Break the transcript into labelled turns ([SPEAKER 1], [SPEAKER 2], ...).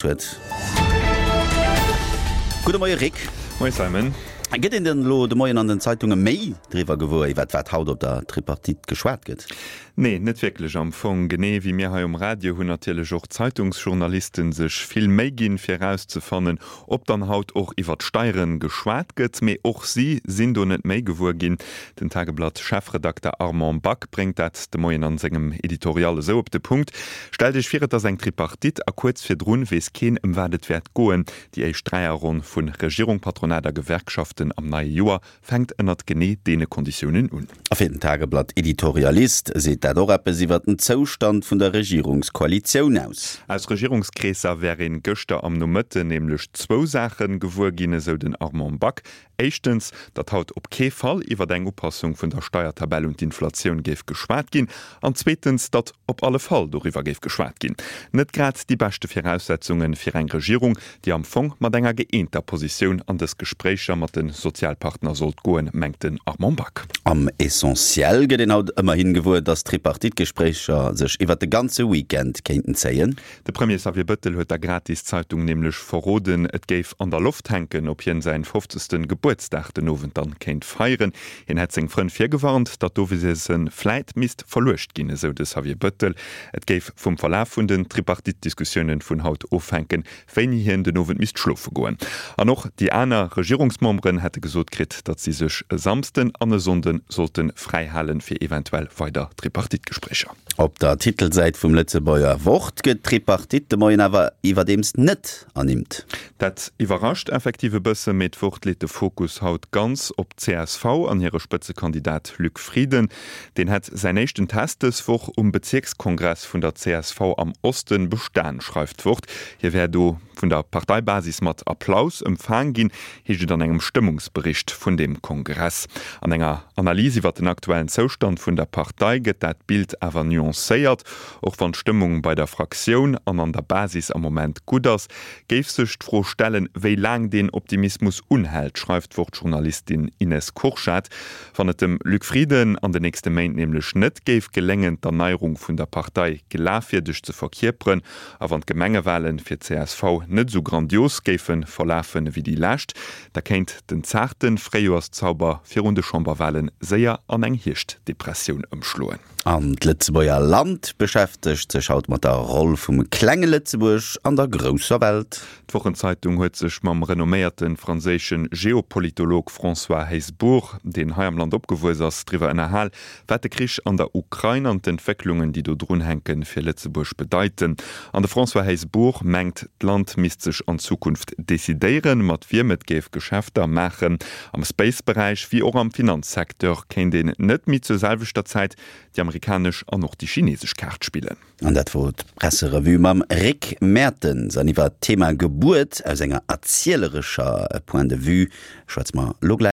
[SPEAKER 1] Huet. Gudde Moie Rick.
[SPEAKER 2] Moie Simon.
[SPEAKER 1] Gëtt een denn elo de Moien an den Zeitunge méi driwwer gewuer, iwwert wat haut op der Tripartite geschwat gëtt?
[SPEAKER 2] Nee, net wierklech am Fong. Genee wéi mir hei um Radio hunn natierlech och d'Zeitungsjournalisten sech vill Méi ginn, fir erauszefannen, ob dann haut och iwwert d'Steiere geschwat gëtt. Mee och si sinn do net méi gewuer ginn. Den Tageblatt-Chefredakter Armand Back bréngt dat de Moien an sengem Editorial esou op de Punkt, Stellt Iech vir, et ass eng Tripartite a kuerz virdrun weess keen ëm wat et wäert goen. Déi éischt Dräierronn vu Regierung, Patronat a Gewerkschaften am neie Joer fänkt ënnert genee deene Konditiounen un.
[SPEAKER 1] A fir den Tageblatt-Editorialist seet dat och eppes iwwer den Zoustand vun der Regierungskoalitioun aus.
[SPEAKER 2] Aus Regierungskreesser wär een gëschter am Nomëtten nämlech zwou Saache gewuer ginn, esou den Armand Back. Éischtens, datt haut op kee Fall iwwer eng Upassung vun der Steiertabell un d'Inflatioun géif geschwat ginn, an zweetens, datt op alle Fall doriwwer géif geschwat ginn. Net grad déi beschte Viraussetzunge fir eng Regierung, déi am Fong mat enger gëeenter Positioun an dës Gespréicher mat de Sozialpartner sollt goen, mengt den Armand Back.
[SPEAKER 1] Am Essentiel gëtt een haut ëmmerhin gewuer, datt d'Tripartite-Gespréicher sech iwwer de ganze Weekend kéinten zéien.
[SPEAKER 2] De Premier Xavier Bëttel huet der Gratiszeitung nämlech verroden, et géif an der Loft hänken, ob hien säin 50. Gebuertsdag den Owend dann kéint feieren. Hien hätt seng Frënn virgewarnt, datt d'Owesiessen vläit misst verluecht ginn, esou de Xavier Bëttel. Et géif vum Verlaf vun den Tripartite-Diskussiounen vun haut ofhänken, wéini hien den Owend misst schlofe goen. An och déi aner Regierungsmemberen hätte gesot kritt, datt si sech e Samsden an e Sonnde sollte fräi halen, fir eventuell weider Tripartite-Gespréicher.
[SPEAKER 1] Op der Titelsäit vum Lëtzebuerger Wort gëtt d'Tripartite de Moien awer iwwerdeems net ernimmt.
[SPEAKER 2] Dat iwwerrascht effektiv e bësse, mee d'Wort leet de Fokus haut ganz op d'CSV an hire Spëtzekandidat Luc Frieden. Deen hätt säin éischten Test dës Woch um Bezierkskongress vun der csv am Osten bestan, schreift d'Wort. Hie wär do vun der Parteibasis mat Applaus empfaang ginn, heescht et an engem Stëmmungsbericht vun deem Kongress. An enger Analys iwwer den aktuellen Zoustand vun der Partei gëtt dat Bild awer nuancéiert. Och wann d'Stëmmung bei der Fraktioun an an der Basis am Moment gutt ass, géif sech d'Fro stellen, wéi laang deen Optimismus unhält, schreift d'Wort-Journalistin Ines Kurschat. Wann et dem Luc Frieden an den nächste Méint nämlech net géif geléngen, d'Erneierung vun der Partei glafwierdeg ze verkierperen, A wann d'Gemengewahlen fir d'CSV net esou grandios géife verlafen ewéi déi lescht, da kéint den zaarte Fréijoerszauber virun de Chamberwahlen séier an eng Hierschtdepressioun ëmschloen.
[SPEAKER 1] An d'Lëtzebuerger Land beschäftegt sech haut mat der Roll vum klenge Lëtzebuerg an der grousser Welt.
[SPEAKER 2] D'Wochenzeitung huet sech mam renomméierte franséische Geopolitolog François Heisbourg, deen hei am Land opgewuess ass, driwwer ënnerhal, Wat de Krich an der Ukrain an d'Entwécklungen, déi do drun hänken, fir Lëtzebuerg bedeiten. An de François Heisbourg mengt, d'Land misst sech an Zukunft decidéieren, mat wiem et géif Geschäfter maachen. Am Space-Beräich wéi och am Finanzsecteur kéint een net méi zur selwechter Zäit déi amerikanesch an och déi chinesesch Kaart spillen.
[SPEAKER 1] An dat wor d'Presserevue mam Rick Mertens. An iwwer d'Thema Gebuert aus enger erzielerescher Point de vue schwätze mer elo gläich.